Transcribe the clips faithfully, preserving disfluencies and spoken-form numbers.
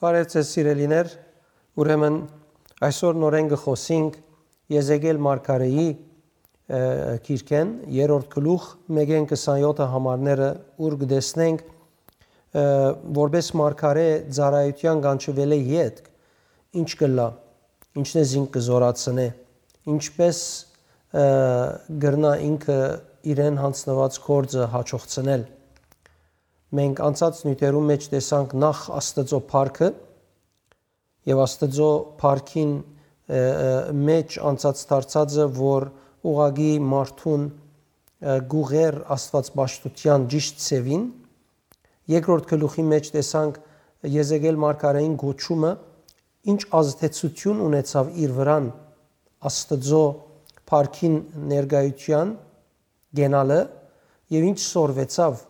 Բարեւ ձեզ, սիրելիներ, ուրեմն այսօր նորէն կը խօսինք Եզեկիել մարգարէի, ը, գիրքէն, երրորդ գլուխ, մէկէն քսանեօթը համարները, ուր կը տեսնենք, ը, որպէս մարգարէ ծառայութեան կանչուելէ ետք, ինչ կ'ըլլայ, ինչն է զինք կը զօրացնէ, ինչպէս, ը, կրնայ ինքը իրեն յանձնուած գործը յաջողցնել։ Մենք անցած նիւթերուն մէջ տեսանք նախ Աստուծոյ փառքը, եւ Աստուծոյ փառքին, ը, ը, մէջ անցած դարձածը, որ ուղղակի մարդուն, ը, կ'ուղղէր աստուածպաշտութեան ճիշդ ձեւին։ Երկրորդ գլուխի մէջ տեսանք Եզեկիել մարգարէին կոչումը, ինչ ազդեցութիւն ունեցաւ իր վրան Աստուծոյ փառքին ներկայութեան գնալը եւ ինչ սորվեցաւ,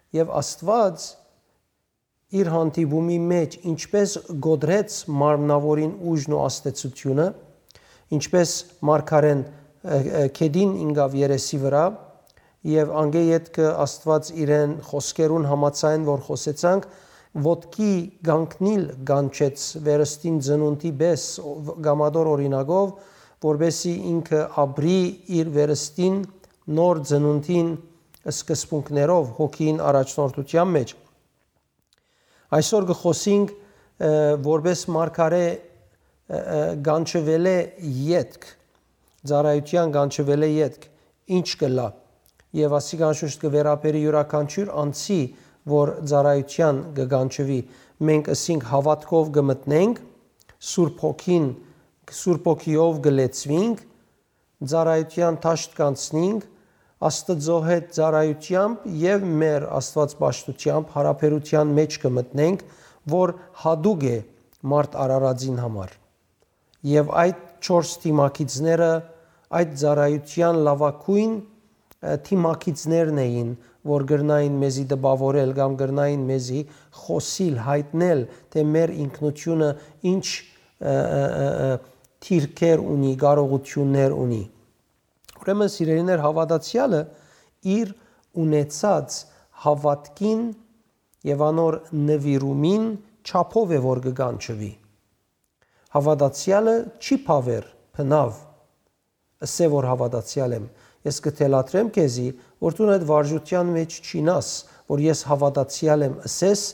եւ Աստուած իր հանդիպումի մէջ ինչպէս կոտրեց մարմնաւորին ուժն ու ազդեցութիւնը, ինչպէս մարգարէն, ը, ը, գետին ինկաւ երեսի վրայ, եւ անկէ ետքը Աստուած իրեն խօսքերուն համաձայն, որ խօսեցանք, ոտքի կանգնիլ կանչեց վերստին ծնունդի պէս, ով կամատոր օրինակով, որպեսզի ինքը ապրի իր վերստին նոր ծնունդին սկզբունքներով հոգին առաջնորդութեան մէջ։ Այսօր կը խօսինք, ը, որպէս մարգարէ, ը, ը, կանչուելէ ետք, ծառայութեան կանչուելէ ետք, ինչ կ'ըլլայ։ Եւ ասիկա անշուշտ կը վերաբերի իւրաքանչիւր անձի, որ ծառայութեան կը կանչուի։ Մենք ըսինք հաւատքով կը մտնենք, Սուրբ Հոգին, Սուրբ Հոգիով կը լեցուինք, ծառայութեան դաշտ կանցնինք, Աստուծոյ հետ ծառայութեամբ եւ մեր Աստուածպաշտութեամբ յարաբերութեան մէջ կը մտնենք, որ յատուկ է մարդ արարածին համար։ Եւ այդ չորս դիմագիծները այդ ծառայութեան լաւագոյն, ը, դիմագիծներն էին, որ կրնային մեզի տպաւորել կամ կրնային մեզի խօսիլ, յայտնել, թէ մեր ինքնութիւնը ինչ, ը, ը, ը, ը, դիրքեր ունի, կարողութիւններ ունի։ Ուրեմն, սիրելիներ, հաւատացեալը իր ունեցած հաւատքին եւ անոր նուիրումին չափով է, որ կը կանչուի։ Հաւատացեալը չի բաւեր, բնաւ, ըսէ, որ հաւատացեալ եմ։ Ես կը թելադրեմ քեզի, որ դուն այդ վարժութեան մէջ չիյնաս, որ ես հաւատացեալ եմ ըսես,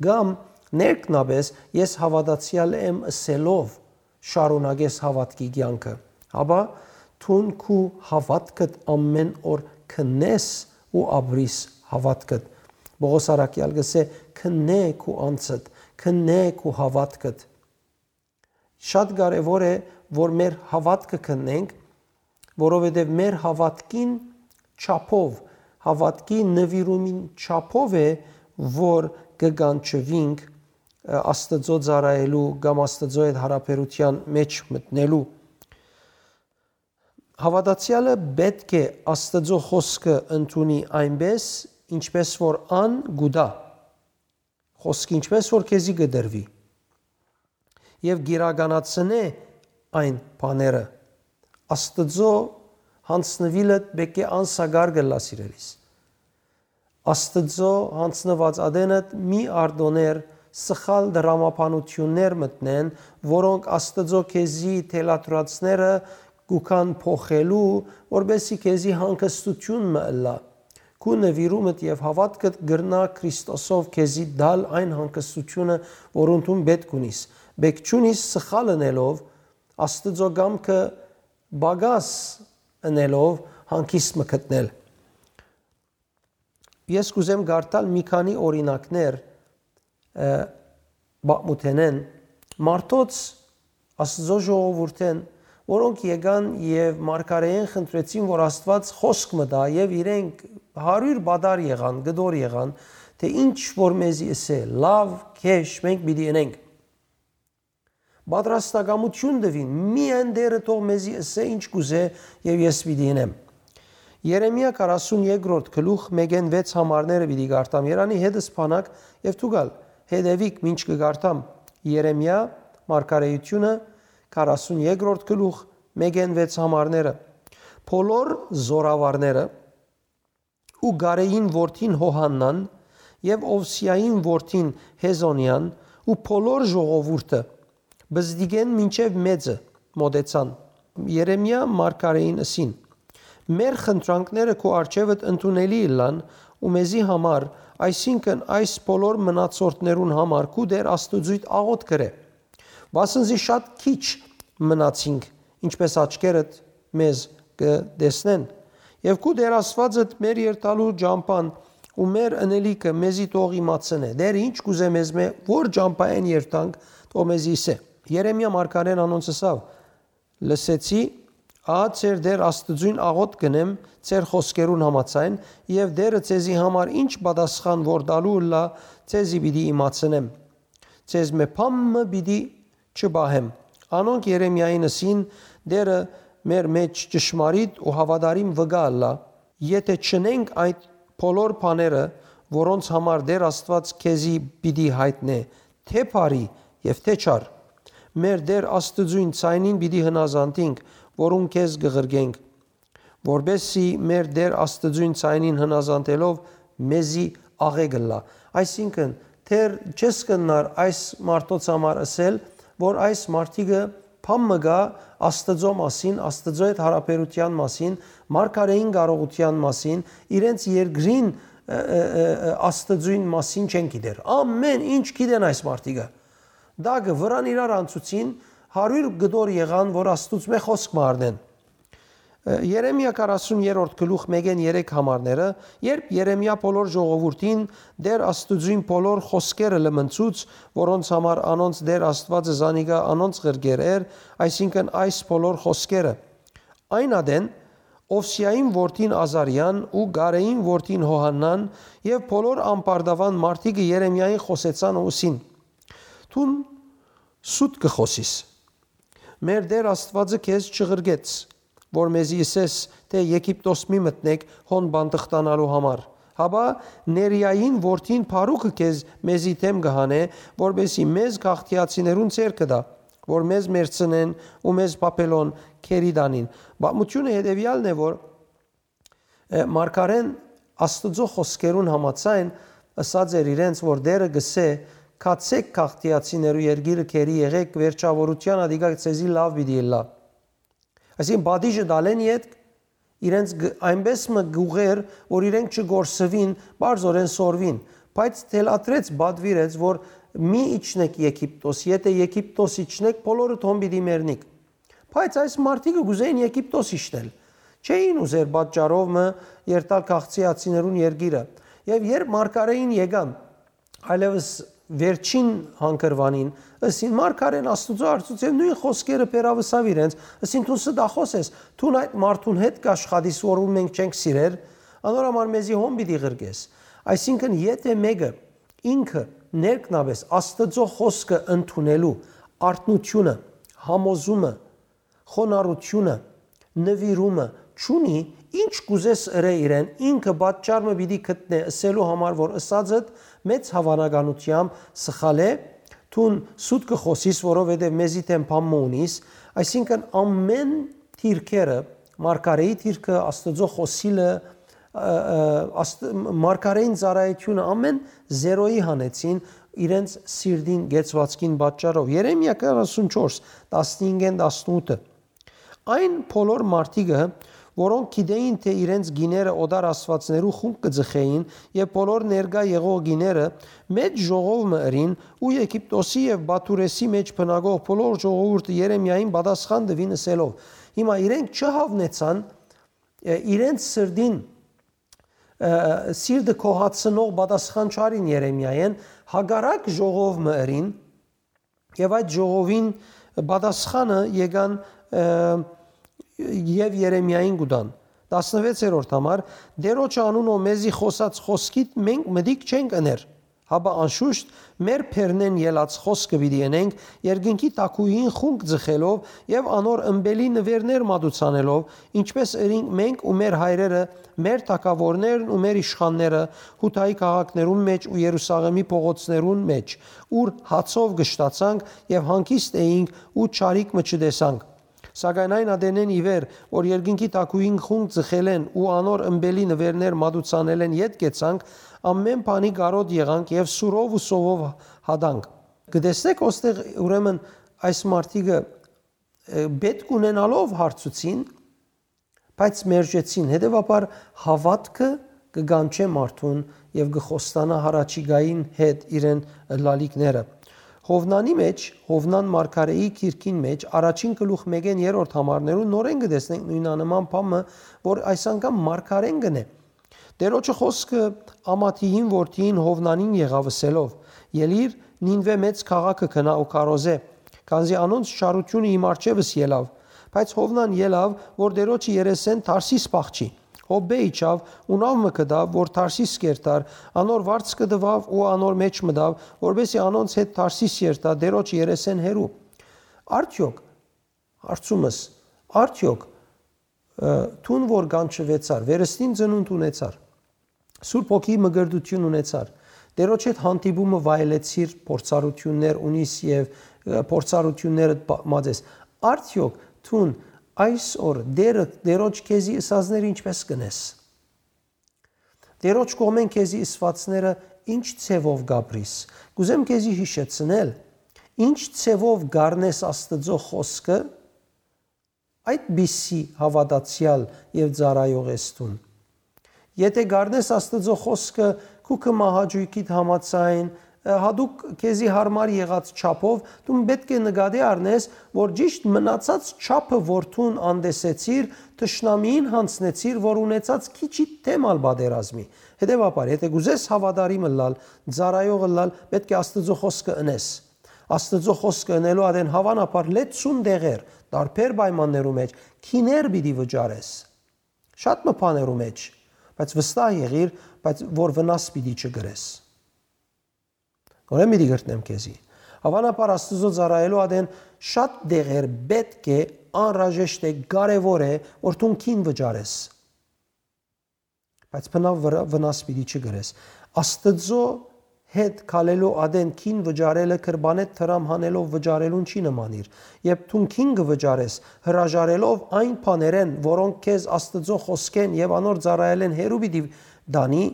կամ ներքնապէս ես հաւատացեալ եմ ըսելով շարունակես հաւատքի կեանքը, հապա դուն քու հաւատքդ ամէն օր քննես ու ապրիս հաւատքդ։ Պողոս առաքեալ կ'ըսէ. «Քննէ քու անձդ, քննէ քու հաւատքդ»։ Շատ կարեւոր է, որ մեր հաւատքը քննենք, որովհետեւ մեր հաւատքին չափով, հաւատքի նուիրումին չափով է, որ կը կանչուինք, ը, Աստուծոյ ծառայելու կամ Աստուծոյ հետ յարաբերութեան մէջ մտնելու։ Հաւատացեալը պէտք է Աստուծոյ խօսքը ընդունի այնպէս, ինչպէս որ ան կու տայ։ Խօսքը ինչպէս որ քեզի կը տրուի, եւ կիրականացնէ այն բաները, Աստուծոյ յանձնուիլդ պէտք է անսակար կ'ըլլայ, սիրելիս։ Աստուծոյ յանձնուած ատենդ մի արտոններ սխալ դրամաբանութիւններ մտնեն, որոնք Աստուծոյ քեզի թելադրածները կու գան փոխելու, որպեսզի քեզի հանգստութիւն մը ըլլայ։ Քու նուիրումդ եւ հաւատքդ կրնայ Քրիստոսով քեզի տալ այն հանգստութիւնը, որ անդուն պէտք ունիս։ Պէտք չունիս սխալ ընելով, Աստուծոյ կամքը պակաս ընելով հանգիստ մը գտնել։ Ես կ'ուզեմ կարդալ մի քանի օրինակներ, ը, պատմութենէն, մարդոց, Աստուծոյ ժողովուրդէն, որոնք եկան եւ մարգարէէն խնդրեցին, որ Աստուած խօսք մը տայ, եւ իրենք հարիւր պատառ եղան, կտոր եղան, թէ ինչ որ մեզի ըսէ, լաւ, քեշ, մենք պիտի ընենք։ Պատրաստակամութիւն տուին, միայն Տէրը թող մեզի ըսէ ինչ կ'ուզէ, եւ ես պիտի ընեմ։ Երեմիա քառասուն երկրորդ գլուխ, մէկէն վեց համարները պիտի կարդամ։ Երանի հետս բանակ եւ դուք ալ հետեւիք, մինչ կը կարդամ Երեմիա մարգարէութիւնը, քառասուն երկրորդ գլուխ, մէկէն վեց համարները։ Բոլոր զորավարները ու Կարէին որդին Յովհաննան եւ Օվսիային որդին Հեզոնեան ու բոլոր ժողովուրդը, բզդիկէն մինչեւ մեծը, մօտեցան։ Երեմիա մարգարէին ըսին. «Մեր խնդրանքները քու առջեւդ ընդունելի ըլլան ու մեզի համար, այսինքն այս բոլոր մնացորդներուն համար քու Տէր Աստուծոյդ աղօթք ըրէ, վասն զի շատ քիչ մնացինք, ինչպէս աչքերդ մեզ կը տեսնեն։ Եւ քու Տէր Աստուածդ մեր երթալու ճամբան ու մեր ընելիքը մեզի թող իմացնէ։ Տէրը ինչ կ'ուզէ մեզմէ, որ ճամբայէն երթանք, թող մեզի ըսէ»։ Երեմիա մարգարէն անոնց ըսաւ. «Լսեցի, ահա ձեր Տէր Աստուծոյն աղօթք կ'ընեմ ձեր խօսքերուն համաձայն, եւ Տէրը ձեզի համար ինչ պատասխան որ տալու ըլլայ, ձեզի պիտի իմացնեմ։ Ձեզմէ բան մը պիտի չպահեմ»։ Անոնք Երեմիային ըսին. «Տէրը մեր մէջ ճշմարիտ ու հաւատարիմ վկայ ըլլայ, եթէ չընենք այդ բոլոր բաները, որոնց համար Տէր Աստուած քեզի պիտի յայտնէ, թէ բարի եւ թէ չար, մեր Տէր Աստուծոյն ձայնին պիտի հնազանդինք, որուն քեզ կը ղրկենք, որպէս զի մեր Տէր Աստուծոյն ձայնին հնազանդելով մեզի աղէկ ըլլայ»։ Այսինքն, դեռ չես կրնար այս մարդոց համար ըսել, որ այս մարդիկը բան մը կայ Աստուծոյ մասին, Աստուծոյ հետ յարաբերութեան մասին, մարգարէին կարողութեան մասին, իրենց երկրին, ը, ը, ը, ը, Աստուծոյն մասին չեն գիտեր։ Ամէն ինչ գիտեն այս մարդիկը։ Տակը վրան իրար անցուցին, հարիւր կտոր եղան, որ Աստուծմէ խօսք մը առնեն։ Ը, Երեմիա քառասուն երրորդ գլուխ մէկէն երեք համարները, երբ Երեմիա բոլոր ժողովուրդին Տէր Աստուծոյն բոլոր խօսքերը լմնցուց, որոնց համար անոնց Տէր Աստուածը զանիկա անոնց ղրկեր էր, այսինքն այս բոլոր խօսքերը։ Այն ատեն Օվսիային որդին Ազարիան ու Կարէին որդին Յովհաննան եւ բոլոր ամբարտաւան մարդիկը Երեմիային խօսեցան ու ըսին. «Դուն սուտ կը խօսիս։ Մեր Տէր Աստուածը քեզ չղրկեց, որ մեզի ըսես թէ Եգիպտոս մի մտնէք հոն բանտխտանալու համար, հապա Ներիային որդին Փարուքը քեզ մեզի դէմ կը հանէ, որպէս զի մեզ գաղթիացիներուն ձեռքը տայ, որ մեզ մեռցնեն ու մեզ Բաբելոն գերի տանին»։ Պատմութիւնը հետեւեալն է, որ, ը, մարգարէն Աստուծոյ խօսքերուն համաձայն ըսած էր իրենց, որ Տէրը կ'ըսէ. «Գացէք գաղթիացիներու երկիրը գերի եղէք, վերջաւորութեան ատիկա ձեզի լաւ պիտի ըլլայ»։ Այսինքն, պատիժը տալէն ետք իրենց գ-, այնպէս մը կ'ուղղէր, որ իրենք չկորսուին, պարզօրէն սորվին, բայց թելադրեց, պատուիրեց, որ «Մի իջնէք Եգիպտոս, եթէ Եգիպտոս իջնէք, բոլորը թոն պիտի մեռնիք»։ Բայց այս մարդիկը կ'ուզէին Եգիպտոս իջնել։ Չէին ուզեր պատճառով մը երթալ քաղցիացիներուն երկիրը։ Եւ երբ մարգարէին եկան, այլեւս վերջին հանգրուանին, ըսին, մարգարէն Աստուծոյ արծուց եւ նոյն խօսքերը բերաւ ըսաւ իրենց, ըսին, «Դուն ստախոս ես, դուն այդ մարդուն հետ կաշխատիս, որուն մենք չենք սիրեր, անոր համար մեզի հոն պիտի ղրկես»։ Այսինքն, եթէ մէկը ինքը ներքնապէս Աստուծոյ խօսքը ընդունելու արթնութիւնը, համոզումը, խոնարհութիւնը, նուիրումը չունի, ինչ կ'ուզես ըրէ իրեն, ինքը պատճառ մը պիտի գտնէ ըսելու համար, որ ըսածդ մեծ հաւանականութեամբ սխալ է, դուն սուտ կը խօսիս, որովհետեւ մեզի դէմ բան մը ունիս, այսինքն, ամէն դիրքերը, մարգարէի դիրքը, Աստուծոյ խօսիլը, ը, ը, աստ-, մարգարէին ծառայութիւնը, ամէն զերոյի հանեցին իրենց սիրտին կեցուածքին պատճառով։ Երեմիա քառասուն չորս, տասնհինգ, տասնութ։ Այն բոլոր մարդիկը, որոնք գիտէին, թէ իրենց կիները օտար աստուածներու խունկ կը ձգէին եւ բոլոր ներկայ եղող կիները մեծ ժողով մը ըրին ու Եգիպտոսի եւ Բաթուրէսի մէջ բնակող բոլոր ժողովուրդը Երեմիային պատասխան տուին ըսելով. հիմա իրենք չհաւնեցան, ը, իրենց սրտին, ը, սիրտը գոհացնող պատասխան չարին Երեմիային, հակառակ ժողով մը ըրին, եւ այդ ժողովին պատասխանը եկան, ը, եւ Երեմիային կու տան։ Տասնվեցերորդ համար. «Տերոջը անունով մեզի խօսած խօսքիդ մենք մտիկ չենք ըներ, հապա անշուշտ մեր բերնէն ելած խօսքը պիտի ընենք, երկնքի թագուհին խունկ ձգելով եւ անոր ըմպելի նուէրներ մատուցանելով, ինչպես ըրինք մենք ու մեր հայրերը, մեր թագաւորներն ու մեր իշխանները Յուդայի քաղաքներուն մէջ ու Երուսաղէմի փողոցներուն մէջ, ուր հացով կշտացանք եւ հանգիստ էինք ու չարիք մը չտեսանք։ Սակայն այն ատենէն ի վեր, որ երկնքի թագուհին խունկ ձգելէն ու անոր ըմպելի նուէրներ մատուցանելէն ետք գեցանք, ամէն բանի կարօտ եղանք եւ սուրով ու սովով հատանք»։ Կը տեսնեք, ոստեղ ուրեմն այս մարդիկը, ը, պէտք ունենալով հարցուցին, բայց մերժեցին։ Հետեւաբար հաւատքը կը կանչէ մարդուն եւ կը խոստանայ յառաջիկային հետ իրեն ըլլալիքները։ Յովնանի մէջ, Յովնան մարգարէի գիրքին մէջ, առաջին գլուխ մէկէն երրորդ համարներուն նորէն կը տեսնենք նոյնանման բան մը, որ այս անգամ մարգարէն կ'ընէ։ Տէրոջը խօսքը Ամաթիին որդիին Յովնանին եղաւ, ըսելով. «Ելի՛ր, Նինուէ մեծ քաղաքը գնայ ու քարոզէ, քանզի անոնց չարութիւնը իմ առջեւս ելաւ»։ Բայց Յովնան ելաւ, որ Տէրոջը երեսէն Թարսիս փախչի։ Յոպպէ իջաւ ու նաւ մը գտաւ, որ Թարսիս կ'երթար, անոր վարձքը տուաւ ու անոր մէջ մտաւ, որպէս զի անոնց հետ Թարսիս երթայ, Տէրոջը երեսէն հեռու։ Արդեօք, հարցումս, արդեօք, ը, դուն որ կանչուեցար, վերստին ծնունդ ունեցար, Սուրբ Հոգի մկրտութիւն ունեցար, Տէրոջ հետ հանդիպումը վայելեցիր, փորձառութիւններ ունիս եւ, ը, փորձառութիւններդ բա-, մած ես, արդեօք դուն այսօր Տէրը, Տէրոջ քեզի ըսածները ինչպէս կ'ընես։ Տէրոջ կողմէն քեզի ըսուածները ինչ ձեւով կ'ապրիս։ Կ'ուզեմ քեզի յիշեցնել, ինչ ձեւով կ'առնես Աստուծոյ խօսքը, այդպիսի հաւատացեալ եւ ծառայող ես դուն։ Եթէ կ'առնես Աստուծոյ խօսքը քու քմահաճոյքիդ համաձայն, ը, յատուկ քեզի յարմար եղած չափով, դուն պէտք է նկատի առնես, որ ճիշդ մնացած չափը, որ դուն անտեսեցիր, թշնամիին յանձնեցիր, որ ունեցած քիչիդ դէմ ալ պատերազմի։ Հետեւաբար, եթէ կ'ուզես հաւատարիմ ըլլալ, ծառայող ըլլալ, պէտք է Աստուծոյ խօսքը ընես։ Աստուծոյ խօսքը ընելու ատեն հաւանաբար լեցուն տեղեր, տարբեր պայմաններու մէջ, գիներ պիտի վճարես։ Շատ մը բաներու մէջ, բայց վստահ եղիր, բայց որ վնաս պիտի չկրես։ Նորէն պիտի կրկնեմ քեզի։ Հաւանաբար Աստուծոյ ծառայելու ատեն շատ տեղեր պէտք է, անհրաժեշտ է, կարեւոր է, որ դուն գին վճարես։ Բայց բնաւ վրա-, վնաս պիտի չկրես։ Աստուծոյ հետ քալելու ատեն գին վճարելը կրբանէ դրամ հանելով վճարելուն չի նմանիր։ Երբ դուն գին կը վճարես, հրաժարելով այն բաներէն, որոնք քեզ Աստուծոյ խօսքէն եւ անոր ծառայելէն հեռու պիտի տանի,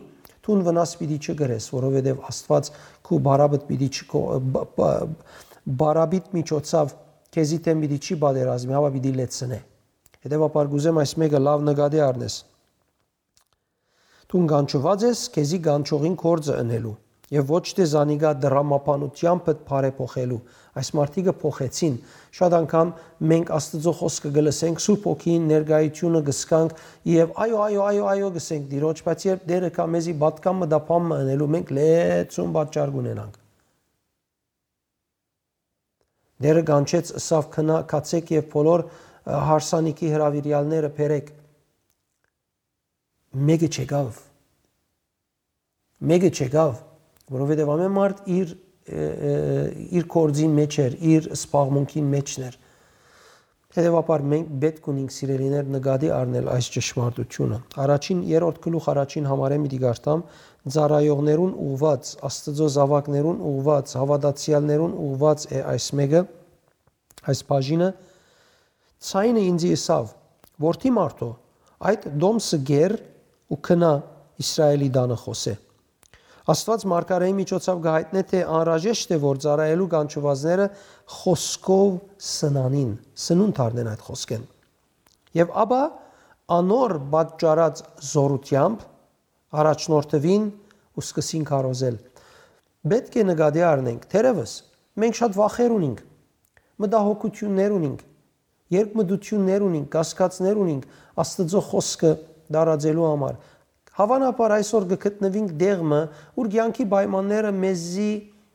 դուն վնաս պիտի չկրես, որովհետեւ Աստուած քու բարապետ պիտի չկո-, բ-, բ-, բարապետ միջոցով քեզի դէմ պիտի չի պատերազմի, հապա պիտի լեցնէ։ Հետեւաբար կ'ուզեմ այս մէկը լաւ նկատի առնես։ Դուն կանչուած ես քեզի կանչողին գործը ընելու եւ ոչ թէ զանիկա դրամաբանութեամբդ բարեփոխելու։ Այս մարդիկը փոխեցին։ Շատ անգամ մենք Աստուծոյ խօսքը կը լսենք, Սուրբ Հոգիին ներկայութիւնը կը զգանք եւ այո, այո, այո, այո կ'ըսենք Տիրոջ, բայց երբ Տէրը կայ մեզի պատգամ մը տապան մը ընելու, մենք լեցուն պատճառ կ'ունենանք։ Տէրը կանչեց, ըսաւ. «Գնա, գացէք եւ բոլոր, ը, հարսանիքի հրաւիրեալները բերէք»։ Մէկը չեկաւ։ Մէկը չեկաւ, որովհետեւ ամէն մարդ իր, ը, ը, իր գործին մէջ էր, իր զբաղմունքին մէջն էր։ Հետեւաբար մենք պէտք ունենք, սիրելիներ, նկատի առնել այս ճշմարտությունը։ Առաջին, երրորդ գլուխ առաջին համարէն պիտի կարդամ. «Ծառայողներուն ուղղուած, Աստուծոյ զաւակներուն ուղղուած, հաւատացեալներուն ուղղուած է այս մէկը, այս բաժինը»։ Ձայնը ինծի ըսաւ. «Որդի մարդու, այդ տոմսը կեր ու գնա Իսրայէլի տանը խօսէ»։ Աստուած մարգարէի միջոցով կը յայտնէ թէ անհրաժեշտ է, որ ծառայելու կանչուածները խօսքով սնանին, սնունդ առնեն այդ խօսքէն։ Եւ ապա անոր պատճառած զօրութեամբ առաջնորդուին ու սկսին քարոզել։ Պէտք է նկատի առնենք, թերեւս մենք շատ վախեր ունինք, մտահոգութիւններ ունինք, երկմտութիւններ ունինք, կասկածներ ունինք Աստուծոյ խօսքը տարածելու համար։ Հաւանաբար այսօր կը գտնուինք տեղ մը, ուր կեանքի պայմանները մեզի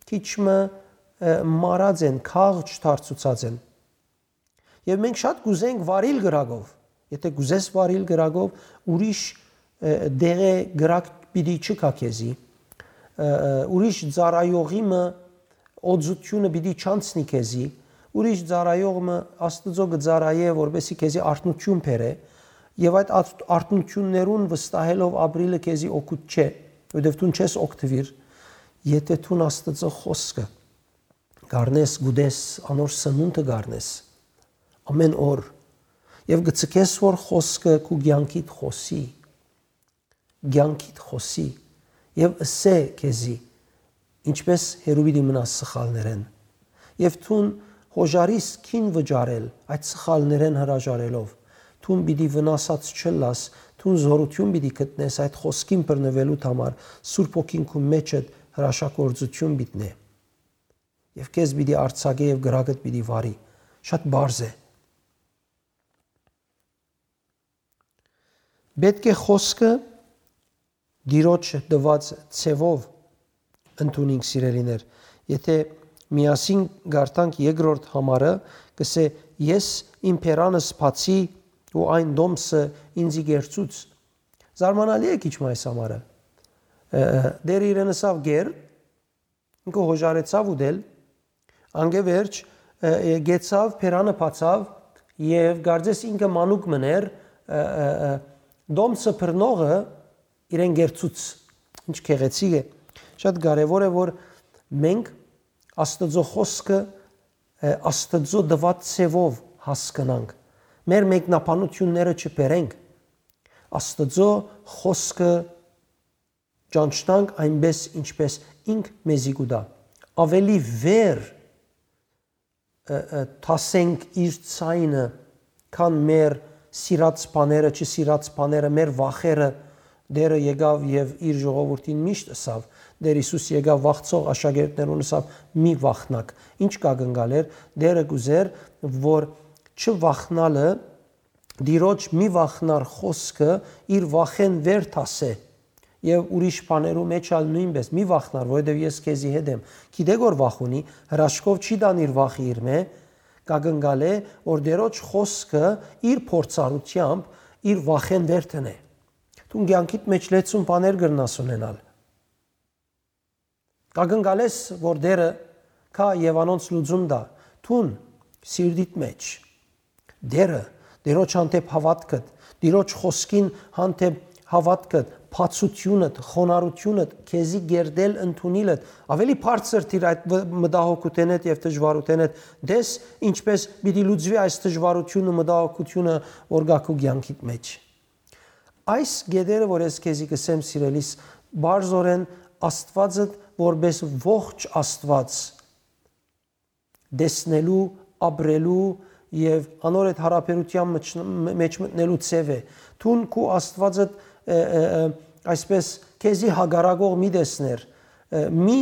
քիչ մը, ը, մարած են, քաղճ դարձուցած են։ Եւ մենք շատ կ'ուզենք վարիլ կրակով։ Եթէ կ'ուզես վարիլ կրակով, ուրիշ, ը, դեղէ կրակ պիտի չկայ քեզի, ը, ը, ուրիշ ծառայողի մը օծութիւնը պիտի չանցնի քեզի, ուրիշ ծառայող մը Աստուծոյ կը ծառայէ, որպեսզի քեզի արթնութիւն բերէ, եւ այդ արթ-, արթնութիւններուն վստահելով ապրիլը քեզի օգուտ չէ, որովհետեւ դուն չես օգտուիր, եթէ դուն Աստուծոյ խօսքը կ'առնես, կ'ուտես, անոր սնունդը կ'առնես ամէն օր, եւ կը ձգես, որ խօսքը քու կեանքիդ խօսի, կեանքիդ խօսի, եւ ըսէ քեզի, ինչպէս հեռու պիտի մնաս սխալներէն, Եւ դուն հոժարիս քին վճարել այդ սխալներէն հրաժարելով։ Դուն պիտի վնասած չըլլաս, դուն զօրութիւն պիտի գտնես այդ խօսքին բռնուելուդ համար, Սուրբ Հոգին քու մէջդ հրաշագործութիւն պիտի նե։ Եւ քեզ պիտի արձակէ եւ կրակդ պիտի վարի։ Շատ պարզ է։ Պէտք է խօսքը Տիրոջ տուած ձեւով ընդունինք, սիրելիներ։ Եթէ միասին կարդանք երկրորդ համարը, կսէ. «Ես իմ բերանս բացի ու այն տոմսը ինծի կերցուց»։ Զարմանալի է քիչ մը այս համարը։ Ը, ը, Տէրը իրեն ըսաւ. «Կեր», ինքը հոժարեցաւ ուտել, անկէ վերջ, ը, ը, գեցաւ, բերանը բացաւ եւ կարծես ինքը մանուկ մըն էր, ը, ը, ը, տոմսը բռնողը իրեն կերցուց։ Ինչ գեղեցիկ է։ Շատ կարեւոր է, որ մենք Աստուծոյ խօսքը, ը, Աստուծոյ տուած ձեւով հասկնանք։ Մեր մեկնաբանութիւնները չբերենք։ Աստուծոյ խօսքը ճանչնանք այնպէս, ինչպէս ինք մեզի կու տայ։ Ավելի վեր, ը, ը, դասենք իր ձայնը, քան մեր սիրած բաները, չսիրած բաները, մեր վախերը։ Տէրը եկաւ եւ իր ժողովուրդին միշտ ըսաւ, Տէր Յիսուս եկաւ վախցող աշակերտներուն ըսաւ. «Մի վախնաք»։ Ինչ կա գնգալ էր, Տէրը կուզեր, որ չվախնալը, Տիրոջ «մի վախնար» խօսքը իր վախէն վեր դասէ։ Եւ ուրիշ բաներու մէջ ալ նոյնպէս. «Մի վախնար, որովհետեւ ես քեզի հետ եմ»։ Գիտէք որ վախ ունի, հրաշքով չի տան իր վախը իրմէ, կակնկալէ, որ Տիրոջ խօսքը իր փորձառութեամբ իր վախէն վեր դնէ։ Դուն կեանքիդ մէջ լեցուն բաներ կրնաս ունենալ։ Կակնկալես, որ Տէրը գայ եւ անոնց լուծում տայ, դուն սիրտիդ մէջ։ Տէրը, Տիրոջ հանդէպ հաւատքդ, Տիրոջ խօսքին հանդէպ հաւատքդ, բացութիւնդ, խոնարհութիւնդ, քեզի կերտել ընդունիլդ, ավելի բարձր դիր այդ վ-, մտահոգութենէդ եւ դժուարութենէդ, տես ինչպէս պիտի լուծուի այս դժուարութիւնը, մտահոգութիւնը, որ գայ քու կեանքիդ մէջ։ Այս կետերը, որ ես քեզի կ'ըսեմ, սիրելիս, բարձորեն Աստուածդ որպէս ողջ Աստուած տեսնելու, ապրելու եւ անոր հետ յարաբերութեան մջ-, մէջ մտնելու ձեւ է։ Դուն քու Աստուածդ, ը, ը, ը, այսպես, քեզի հակառակող մի տեսներ, ը, մի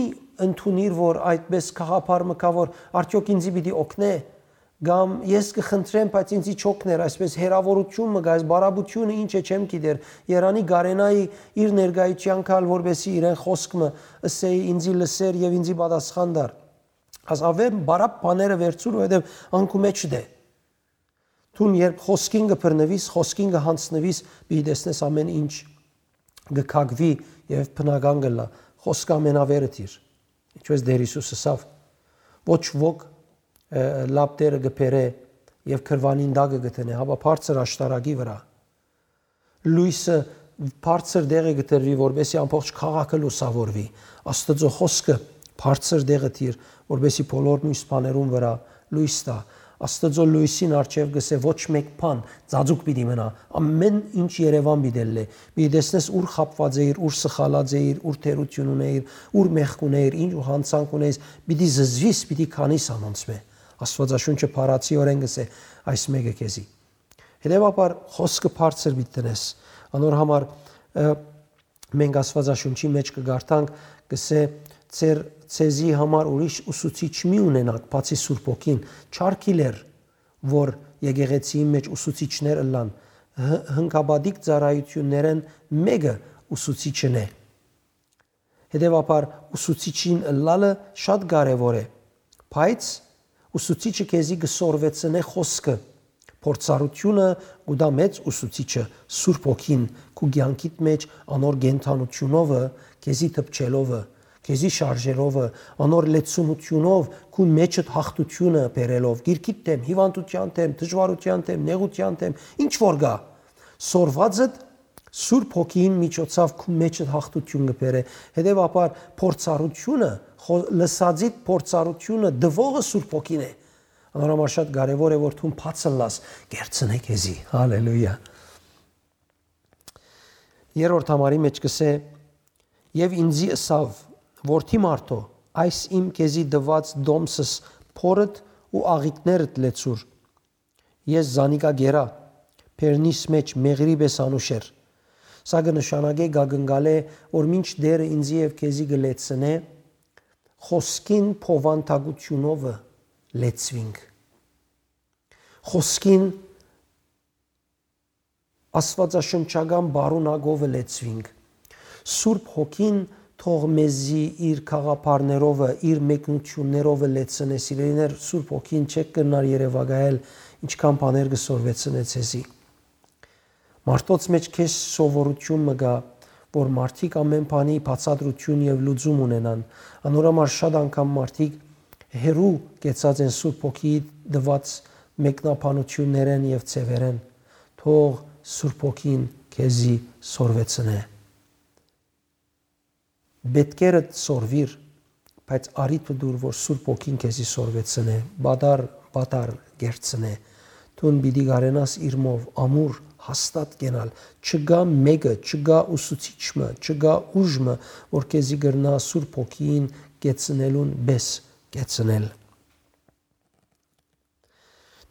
ընդունիր, որ այդպես գաղափար մը կայ, որ արդեօք ինձի պիտի օգնէ, կամ ես կը խնդրեմ, բայց ինձի չօգներ, այսպես հերավորութիւն մը կայ, այս բարապետութիւնը ինչ է, չեմ գիտեր, երանի կարենայի իր ներկայութեան գալ, որպէսի իրեն խօսք մը ըսէի, ինձի լսեր եւ ինձի պատասխան տար։ Աս աւեր բարապ բաները վերցուր, որովհետեւ ան քու մէջդ է։ Դուն երբ խօսքին կը բռնուիս, խօսքին կը յանձնուիս, պիտի տեսնես ամէն ինչ կը քակուի եւ բնական կ'ըլլայ։ Խօսքը ամենավերը դիր։ Ինչպես Տէր Յիսուս ըսաւ. «Ոչ ոք, ը, լապտերը կը բերէ եւ կրուանին տակը կը դնէ, հապա բարձր աշտարակի վրայ»։ Լոյսը բարձր տեղը կը դրուի, որպեսզի ամբողջ քաղաքը լուսաւորուի։ Աստուծոյ խօսքը բարձր տեղը դիր, որպեսզի բոլոր մյուս բաներուն վրայ լոյս տայ։ Աստուծոյ լոյսին առջեւ կ'ըսէ. «Ոչ մէկ բան ծածուկ պիտի մնայ, ամէն ինչ երեւան պիտի ըլլայ»։ Պիտի տեսնես ուր խաբուած էիր, ուր սխալած էիր, ուր թերութիւն ունէիր, ուր մեղք ունէիր, ինչ յանցանք ունէիր, պիտի զզուիս, պիտի քանիս անոնցմէ։ Աստուածաշունչը բառացիօրէն կ'ըսէ այս մէկը քեզի։ Հետեւաբար խօսքը բարձր պիտի դնես։ Անոր համար, ը, մենք Աստուածաշունչի մէջ կը կարդանք, կ'ըսէ. «Ձեր, ձեզի համար ուրիշ ուսուցիչ մի ունենաք, բացի Սուրբ Հոգին»։ Չարք իլեր, որ եկեղեցիին մէջ ուսուցիչներ ըլլան, հ-, հնկապատիկ ծառայութիւններէն մէկը ուսուցիչն է։ Հետեւաբար ուսուցիչին ըլլալը շատ կարեւոր է, բայց ուսուցիչը քեզի կը սորվեցնէ խօսքը։ Փորձառութիւնը կու տայ մեծ ուսուցիչը, Սուրբ Հոգին, քու կեանքիդ մէջ անոր կենդանութիւնովը, քեզի դպչելովը, քեզի շարժելովը, անոր լեցունութիւնով քու մէջդ յաղթութիւնը բերելով, գիրքիդ դէմ, հիւանդութեան դէմ, դժուարութեան դէմ, նեղութեան դէմ, ինչ որ գայ, սորվածդ Սուրբ Հոգին միջոցաւ քու մէջդ յաղթութիւն կը բերէ։ Հետեւաբար փորձառութիւնը, խո-, լսածիդ փորձառութիւնը տուողը Սուրբ Հոգին է։ Անոր համար շատ կարեւոր է, որ դուն բաց ըլլաս, կերցնէ քեզի։ Հալելույա։ Երրորդ համարի մէջ կ'ըսէ. «Եւ ինձի ըսաւ. "Որդի մարդո, այս իմ քեզի տուած տոմսս Փորդ ու աղիքներդ լեցուր։ Ես զանիկա գերա, բերնիս մէջ մեղրի պէս անուշ էր։ Սա կը նշանակէ, կը կնկալէ, որ մինչ Տէրը ինծի եւ քեզի կը լեցնէ, խօսքին փովանդակութիւնովը լեցուինք։ Խօսքին աստուածաշնչական պարունակովը լեցուինք։ Սուրբ Հոգին թող մեզի իր գաղափարներովը, իր մեկնութիւններովը լեցնէ, սիրելիներ, Սուրբ Հոգին չէք կրնար երեւակայել, ինչքան բաներ կը սորվեցնէ ձեզի։ Մարդոց մէջ քեզ սովորութիւն մը կայ, որ մարդիկ ամէն բանի բացատրութիւն եւ լուծում ունենան։ Անոր համար շատ անգամ մարդիկ հեռու կեցած են Սուրբ Հոգիի տուած մեկնաբանութիւններէն եւ ձեւերէն։ Թող Սուրբ Հոգին քեզի սորվեցնէ։ Պէտքերդ սորվիր, բայց առիթը տուր, որ Սուրբ Հոգին քեզի սորվեցնէ, պատառ, պատառ կերցնէ։ Դուն պիտի կարենաս իրմով ամուր, հաստատ կենալ։ Չկայ մէկը, չկայ ուսուցիչ մը, չկայ ուժ մը, որ քեզի կրնայ Սուրբ Հոգին կեցնելուն պէս կեցնել։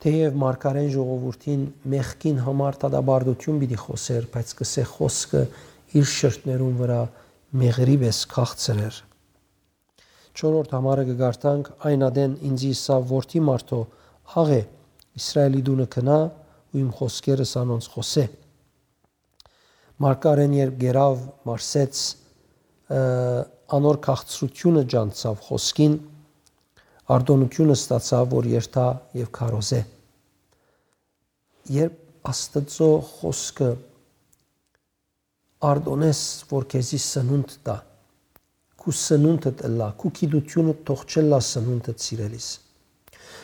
Թէեւ մարգարէն ժողովուրդին մեղքին համար դատապարտութիւն պիտի խօսէր, բայց կ'ըսէ, խօսքը իր շրթներուն վրայ մեղրի պէս քաղցր էր։ Չորրորդ համարը կը կարդանք. «Այն ատեն ինծի ըսաւ. Որդի մարդոյ, աղէ, Իսրայէլի տունը գնայ ու իմ խօսքերս անոնց խօսէ»։ Մարգարէն երբ կերաւ, մարսեց, ը, անոր քաղցրութիւնը ջանցաւ խօսքին, արտօնութիւնը ստացաւ, որ երթայ եւ քարոզէ։ Երբ Աստուծոյ խօսքը արտօնես, որ քեզի սնունդ տայ, քու սնունդդ ըլլայ, քու գիտութիւնդ թող չըլլայ սնունդդ, սիրելիս։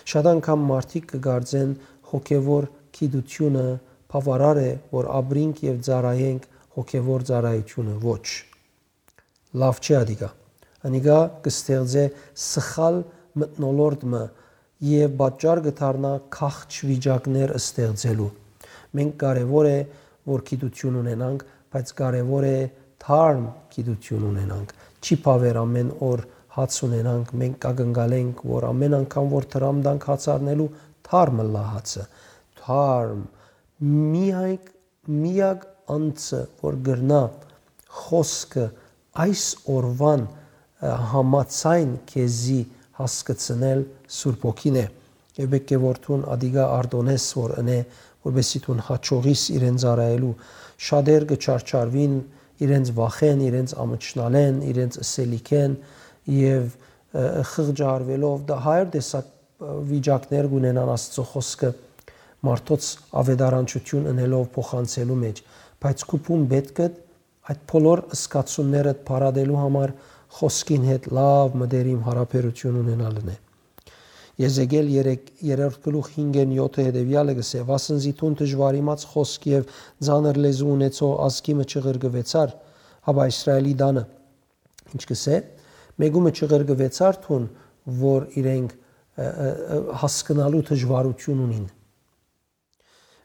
Շատ անգամ մարդիկ կը կարծեն, հոգեւոր գիտութիւնը բաւարար է, որ ապրինք եւ ծառայենք հոգեւոր ծառայութիւնը։ Ոչ։ Լաւ չէ ատիկա։ Անիկա կը ստեղծէ սխալ մթնոլորտ մը եւ պատճառ կը դառնայ գաղջ վիճակներ ստեղծելու։ Մենք կարեւոր է, որ գիտութիւն ունենանք, բայց կարեւոր է թարմ գիտութիւն ունենանք։ Չի բաւեր ամէն օր հաց ունենանք, մենք կակնկալենք, որ ամէն անգամ որ դրամ տանք հաց առնելու, թարմ ըլլայ հացը։ Թարմ, միակ, միակ անձը, որ կրնայ խօսքը այս օրուան, ը, համաձայն քեզի հասկցնել, Սուրբ Հոգին է։ Եւ պէտք է որ դուն ատիկա արտոնես, որ ընէ, որպեսզի դուն հաջողիս իրեն ծառայելու։ Շատեր կը չարչարուին իրենց վախէն, իրենց ամչնալէն, իրենց ըսելիքէն եւ, ը, խղճարվելով դա հայր տեսակ, ը, վիճակներ կունենան Աստծո խօսքը մարդոց աւետարանչութիւն ընելով փոխանցելու մէջ, բայց քու բուն պէտք է այդ բոլոր զգացումներդ փարատելու համար խօսքին հետ լաւ մտերիմ յարաբերութիւն ունենալն է։ Եզեկիել երեք, երրորդ գլուխ հինգ են յոթը հետեւեալը կ'ըսէ. «Վասն զի դուն դժուարիմաց խօսք եւ ծանր լեզու ունեցող ազգի մը չղրկուեցար, հապա Իսրայէլի տանը», ինչ կ'ըսէ, մէկու մը չղրկուեցար դուն, որ իրենք, ը, ը, ը, հասկնալու դժուարութիւն ունին,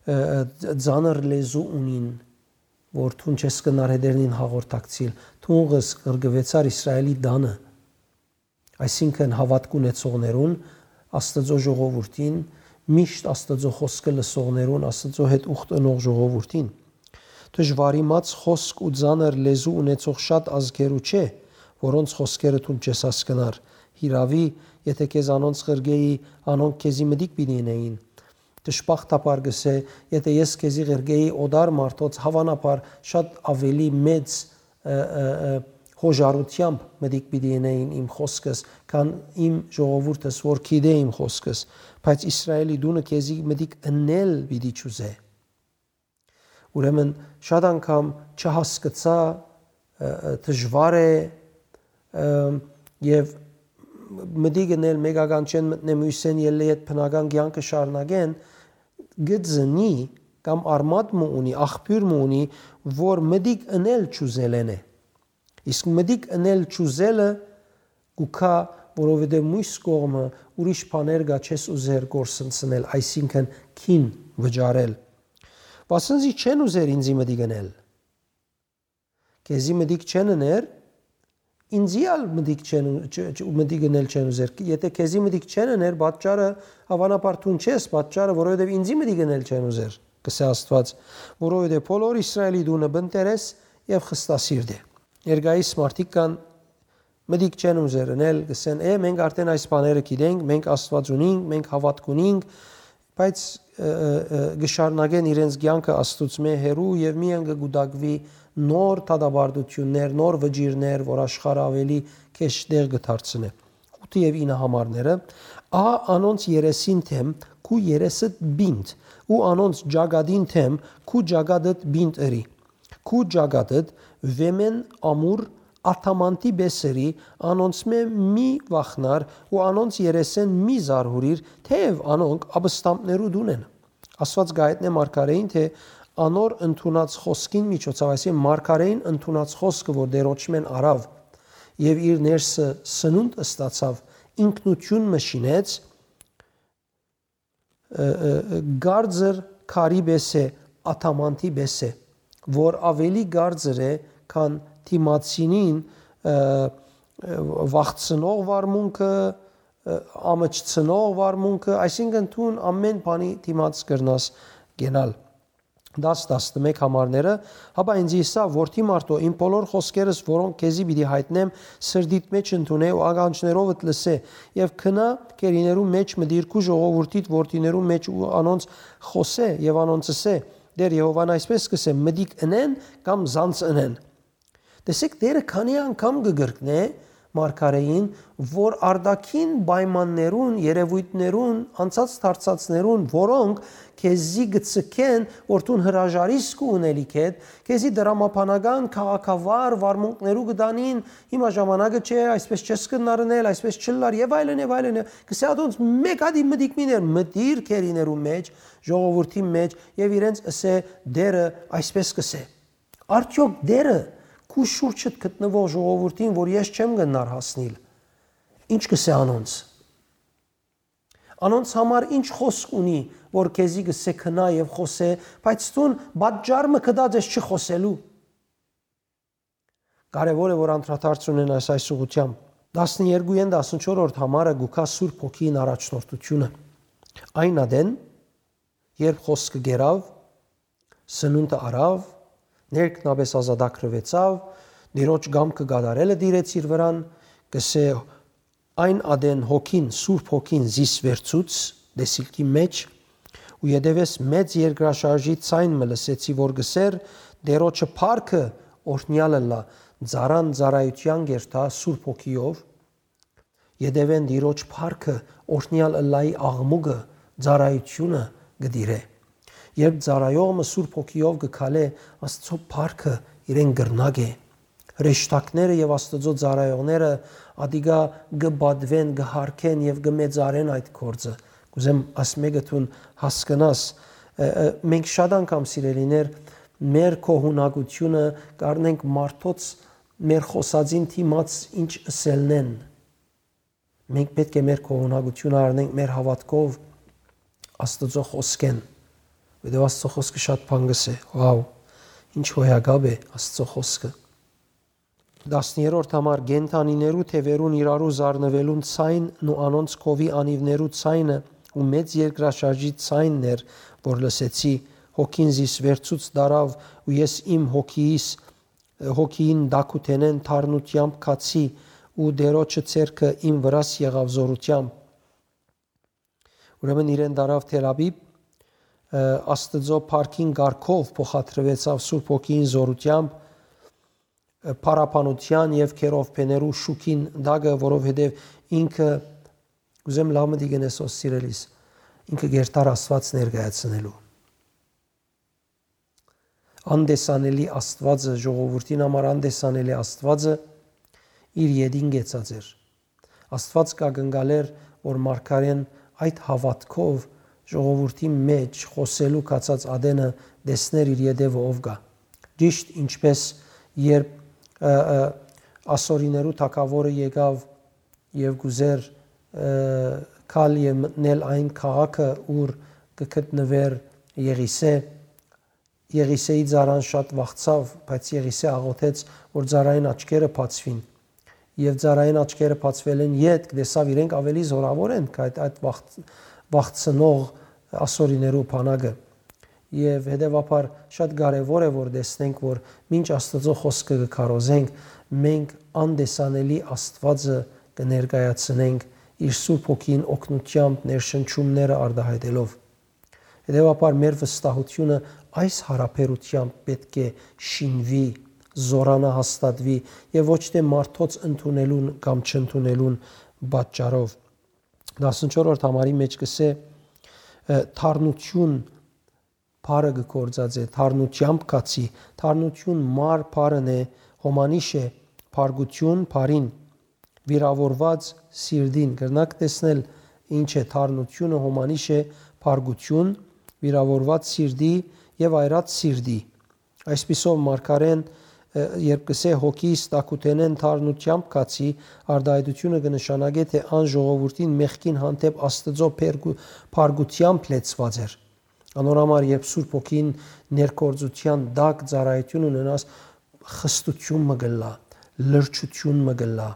ը, ը, ծանր լեզու ունին, որ դուն չես կրնար հետերնին հաղորդակցիլ, դուն ղս-, ղրկուեցար Իսրայէլի տանը, այսինքն հաւատք ունեցողներուն, Աստծո ժողովուրդին, միշտ Աստծո խօսքը լսողներուն, Աստծո հետ ուխտ ընող ժողովուրդին։ Դժուարիմաց խօսք ու ծանր լեզու ունեցող շատ ազգերու չէ, որոնց խօսքերը դուն չես հասկնար։ Հիրաւի, եթէ քեզ անոնց ղրկէի, անոնք քեզի մտիկ պիտի ընէին։ Դժբախտաբար կ'ըսէ, եթէ ես քեզի ղրկէի օտար մարդոց, հաւանաբար շատ աւելի մեծ, ը, ը, ը, յոժարութեամբ մտիկ պիտի ընէին իմ խօսքս, քան իմ ժողովուրդս, որ գիտէ իմ խօսքս, բայց Իսրայէլի տունը քեզի մտիկ ընել պիտի չուզէ։ Ուրեմն շատ անգամ չհասկցայ, ը, ը, դժուար է, ը, եւ մտիկ ընել մեկական չեն մտնե մոյսեն ելլե յետ բնական կեանքը շարունակեն, կը ծնի կամ արմատ մը ունի, աղբիւր մը ունի, որ մտիկ ընել չուզելէն է։ Իսկ մտիկ ընել չուզելը կու գայ, որովհետեւ մոյս կողմը ուրիշ բաներ կա չես ուզեր կորսնցնել, այսինքն՝ քին վճարել։ Վասն զի չեն ուզեր ինծի մտիկ ընել։ Քեզի մտիկ չեն ըներ, ինծի ալ մտիկ չեն ու-, չ-, չ-, մտիկ ընել չեն ուզեր։ Եթէ քեզի մտիկ չեն ըներ, պատճառը, հաւանաբար դուն չես, պատճառը, որովհետեւ ինծի մտիկ ընել չեն ուզեր, կ'ըսէ Աստուած, որովհետեւ բոլոր Իսրայէլի տունը բնտերես եւ խստասիրտ է։ Ներկայիս մարդիկ կան, մտիկ չեն ուզեր ընել, կ'ըսեն. «Է, մենք արդէն այս բաները գիտենք, մենք Աստուած ունինք, մենք հաւատք ունինք», բայց, ը, ը, ը, կը շարունակեն իրենց կեանքը Աստուծմէ հեռու եւ միայն կը կուտակուի նոր դատապարտութիւններ, նոր վճիռներ, որ աշխարհը աւելի քեշ տեղ կը դարձնէ։ Ութը եւ ինը համարները. «Ահա անոնց երեսին դէմ քու երեսդ պինդ, ու անոնց ճակատին դէմ քու ճակատդ պինդ ըրի։ Քու ճակատդ վէմէն ամուր ադամանդի պէս ըրի, անոնցմէ մի վախնար ու անոնց երեսէն մի զարհուրիր, թէեւ անոնք ապստամբներու տուն են»։ Աստուած կը հայտնէ մարգարէին, թէ անոր ընդունած խօսքին միջոցաւ, այսինքն՝ մարգարէին ընդունած խօսքը, որ Տէրոջմէն առաւ եւ իր ներսը սնունդ ստացաւ, ինքնութիւն մը շինեց, ը, ը, ը, կարծր քարի պէս է, ադամանդի պէս է, որ աւելի կարծր է, քան դիմացինին, ը, ը, վախցնող վարմունքը, ը, ամչցնող վարմունքը, այսինքն՝ դուն ամէն բանի դիմաց կրնաս կենալ։ Դաս, տասնմէկ համարները. «Հապա ինձ ըսաւ. "Որդի մարդոյ, իմ բոլոր խօսքերս, որոնք քեզի պիտի յայտնեմ, սրտիդ մէջ ընդունէ ու ականջներովդ լսէ, եւ գնա, գերիներու մէջ մտիր քու ժողովուրդիդ որդիներու մէջ ու անոնց խօսէ եւ անոնց ըսէ. "Տէր Եհովան այսպէս կ'ըսէ. "Մտիկ ընեն կամ զանց ընեն""»։ Տեսեք, Տէրը քանի՞ անգամ կը կրկնէ մարգարէին, որ արտաքին պայմաններուն, երեւոյթներուն, անցած դարձածներուն, որոնք քեզի կը ցկեն, որ դուն հրաժարիս քու ունելիքէդ, քեզի դրամաբանական, քաղաքավար վարմունքներու կը տանին, "Հիմա ժամանակը չէ, այսպէս չես կրնար ընել, այսպէս չ'ըլլար", եւ այլն, եւ այլն։ Կ'ըսէ ատոնց. "Մէկ ատի մտիկ մի ներ, մտիր գերիներու մէջ, ժողովուրդի մէջ, եւ իրենց ըսէ. "Տէրը այսպէս կ'ըսէ""։ Արդեօք Տէրը քու շուրջդ գտնուող ժողովուրդին, որ ես չեմ կրնար հասնիլ, ի՞նչ կ'ըսէ անոնց։ Անոնց համար ի՞նչ խօսք ունի, որ քեզի կ'ըսէ. "Գնա եւ խօսէ", բայց դուն պատճառ մը գտած ես չխօսելու։ Կարեւոր է, որ անդրադարձ ունենաս այս ուղղութեամբ։ Տասներկուին տասնչորսերորդ համարը կու գայ Սուրբ Հոգիին առաջնորդութիւնը։ Այն ատեն, երբ խօսքը կերաւ, սնունդը առաւ, ներքնապէս ազատագրուեցաւ, Տիրոջ կամքը կատարելը տիրեց իր վրան, կ'ըսէ. "Այն ատեն Հոգին, Սուրբ Հոգին զիս վերցուց տեսիլքի մէջ, ու ետեւէս մեծ երկրաշարժի ձայն մը լսեցի, որ կ'ըսէր. "Տիրոջը փառքը օրհնեալ ըլլայ, ծառան ծառայութեան կ'երթայ Սուրբ Հոգիով"։ Ետեւէն Տիրոջ փառքը օրհնեալ ըլլայի աղմուկը, ծառայութիւնը կը տիրէ։ Երբ ծառայող մը Սուրբ Հոգիով կը քալէ, Աստուծոյ փառքը իրեն կրնակ է։ Հրեշտակները եւ Աստուծոյ ծառայողները ատիկա կը պատուեն, կը յարգեն եւ կը մեծարեն այդ գործը։ Կ'ուզեմ աս մէկը դուն հասկնաս, ը, ը, մենք շատ անգամ, սիրելիներ, մեր գոհունակութիւնը կ'առնենք մարդոց մեր խօսածին դիմաց ինչ ըսելնեն։ Մենք պէտք է մեր գոհունակութիւնը առնենք մեր հաւատքով Աստուծոյ խօսքէն, որովհետեւ Աստուծոյ խօսքը շատ բան կ'ըսէ։ Վաու, ինչ հոյակապ է Աստուծոյ խօսքը։ Տասներորդ համար. "Կենդանիներու թեւերուն իրարու զարնուելուն ձայնն ու անոնց քովի անիւներու ձայնը ու մեծ երկրաշարժի ձայնն էր, որ լսեցի, Հոգին զիս վերցուց տարաւ ու ես իմ հոգիիս, հոգիին տակութենէն թարնութեամբ գացի ու Տիրոջը ձեռքը իմ վրաս եղաւ զօրութեամբ"։ Ուրեմն իրեն տարաւ Թել Աբիբ, ը, Աստուծոյ փառքին կարգով փոխադրուեցաւ Սուրբ Հոգիին զօրութեամբ, ը, փառաբանութեան եւ քերովբեներու շուքին տակը, որովհետեւ ինքը, կ'ուզեմ լաւ մտիկ ընես, սիրելիս, ինքը կ'երթար Աստուած ներկայացնելու։ Անտեսանելի Աստուածը, ժողովուրդին համար անտեսանելի Աստուածը իր ետին կեցած էր։ Աստուած կ'ակնկալէր, որ մարգարէն այդ հաւատքով ժողովուրդի մէջ խօսելու գացած ատենը տեսնէր իր ետեւը ով կայ։ Ճիշդ ինչպէս երբ, ը, ը, ասորիներու թագաւորը եկաւ եւ կ'ուզէր, ը, գալ եւ մտնել այն քաղաքը, ուր կը գտնուէր Եղիսէ, Եղիսէի ծառան շատ վախցաւ, բայց Եղիսէ աղօթեց, որ ծառային աչքերը բացուին։ Եւ ծառային աչքերը բացուելէն ետք տեսաւ իրենք աւելի զօրաւոր են, քան այդ, այդ վաղ-, վաղցնող ասորիներու բանակը։ Եւ հետեւաբար շատ կարեւոր է, որ տեսնենք, որ մինչ Աստուծոյ խօսքը կը քարոզենք, մենք անտեսանելի Աստուածը կը ներկայացնենք իր Սուրբ Հոգին օգնութեամբ, ներշնչումները արտայայտելով։ Հետեւաբար մեր վստահութիւնը այս յարաբերութեամբ պէտք է շինուի, զօրանայ, հաստատուի եւ ոչ թէ մարդոց ընդունելուն կամ չընդունելուն պատճառով։ Տասնչորրորդ համարի մէջ կ'ըսէ, ը, թարնութիւն բառը կը գործածէ, թարնութեամբ գացի, թարնութիւն մար բառն է, հոմանիշ է, բարկութիւն բառին, վիրաւորուած սիրտին։ Կրնաք տեսնել ինչ է թարնութիւնը, հոմանիշ է, բարկութիւն, վիրաւորուած սիրտի եւ այրած սիրտի։ Այսպիսով մարգարէն, ը, երբ կ'ըսէ հոգիս տակութենէն թարնութեամբ գացի, արտայայտութիւնը կը նշանակէ, թէ ան ժողովուրդին մեղքին հանդէպ Աստուծոյ բերգու-, բարկութեամբ լեցուած էր։ Անոր համար, երբ Սուրբ Հոգին ներգործութեան տակ ծառայութիւն ունենաս, խստութիւն մը կ'ըլլայ, լրջութիւն մը կ'ըլլայ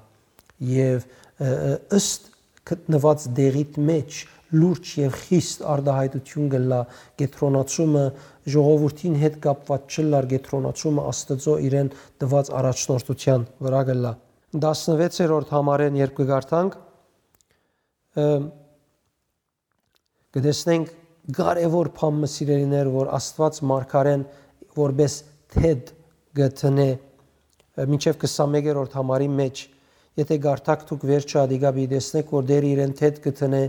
եւ, ը, ը, ըստ գտնուած տեղիդ մէջ լուրջ եւ խիստ արտայայտութիւն կ'ըլլայ, կեդրոնացումը, ժողովուրդին հետ կապուած չ'ըլլար, կեդրոնացումը Աստուծոյ իրեն տուած առաջնորդութեան վրայ կ'ըլլայ։ Տասնվեցերորդ համարէն երբ կը կարդանք, ը, կը տեսնենք կարեւոր բան մը, սիրելիներ, որ Աստուած մարգարէն որպէս թեթ կը դնէ, մինչեւ քսանմեկերորդ համարի մէջ, եթէ կարդաք դուք վերջը, ատիկա պիտի տեսնէք, որ Տէրը իրեն թեթ կը դնէ,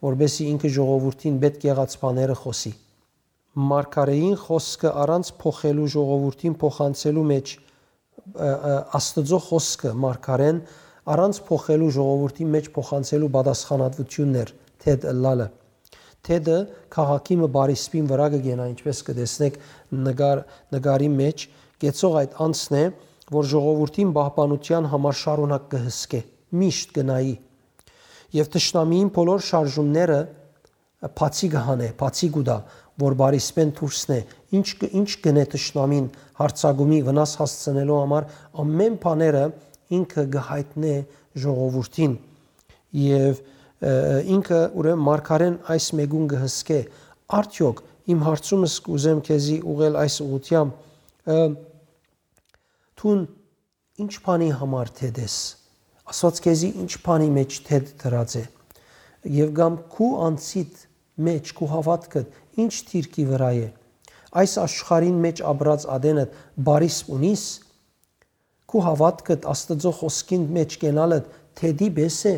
որպէսզի ինքը ժողովուրդին պէտք եղած բաները խօսի։ Մարգարէին խօսքը առանց փոխելու ժողովուրդին փոխանցելու մէջ, ը, ը, Աստուծոյ խօսքը մարգարէն առանց փոխելու ժողովուրդին մէջ փոխանցելու պատասխանատվութիւնն էր թեթ ըլլալը։ Թեթը քաղաքի մը բարիսպին վրայ կը կենայ, ինչպէս կը տեսնէք նկար-, նկարի մէջ, կեցող այդ անձն է, որ ժողովուրդին պահպանութեան համար շարունակ կը հսկէ, միշտ կը նայի։ Եւ թշնամիին բոլոր շարժումները բացի կը հանէ, բացի կու տայ, որ բարիսպէն դուրսն է, ինչ կը-, ինչ կ'ընէ թշնամին յարձակումի վնաս հասցնելու համար, ամէն բաները ինքը կը յայտնէ ժողովուրդին։ Եւ, ը, ինքը ուրեմն մարգարէն այս մէկուն կը հսկէ։ Արդեօք իմ հարցումս կ'ուզեմ քեզի ուղղել այս ուղղութեամբ, ը, դուն ինչ բանի համար թեթ ես։ Աստուած քեզի ինչ բանի մէջ թեթ դրած է։ Եւ կամ քու անձիդ մէջ, քու հաւատքդ ինչ դիրքի վրայ է։ Այս աշխարհին մէջ ապրած ատենդ բարիսպ ունի՞ս։ Քու հաւատքդ Աստուծոյ խօսքին մէջ կենալդ թեթի պէս է։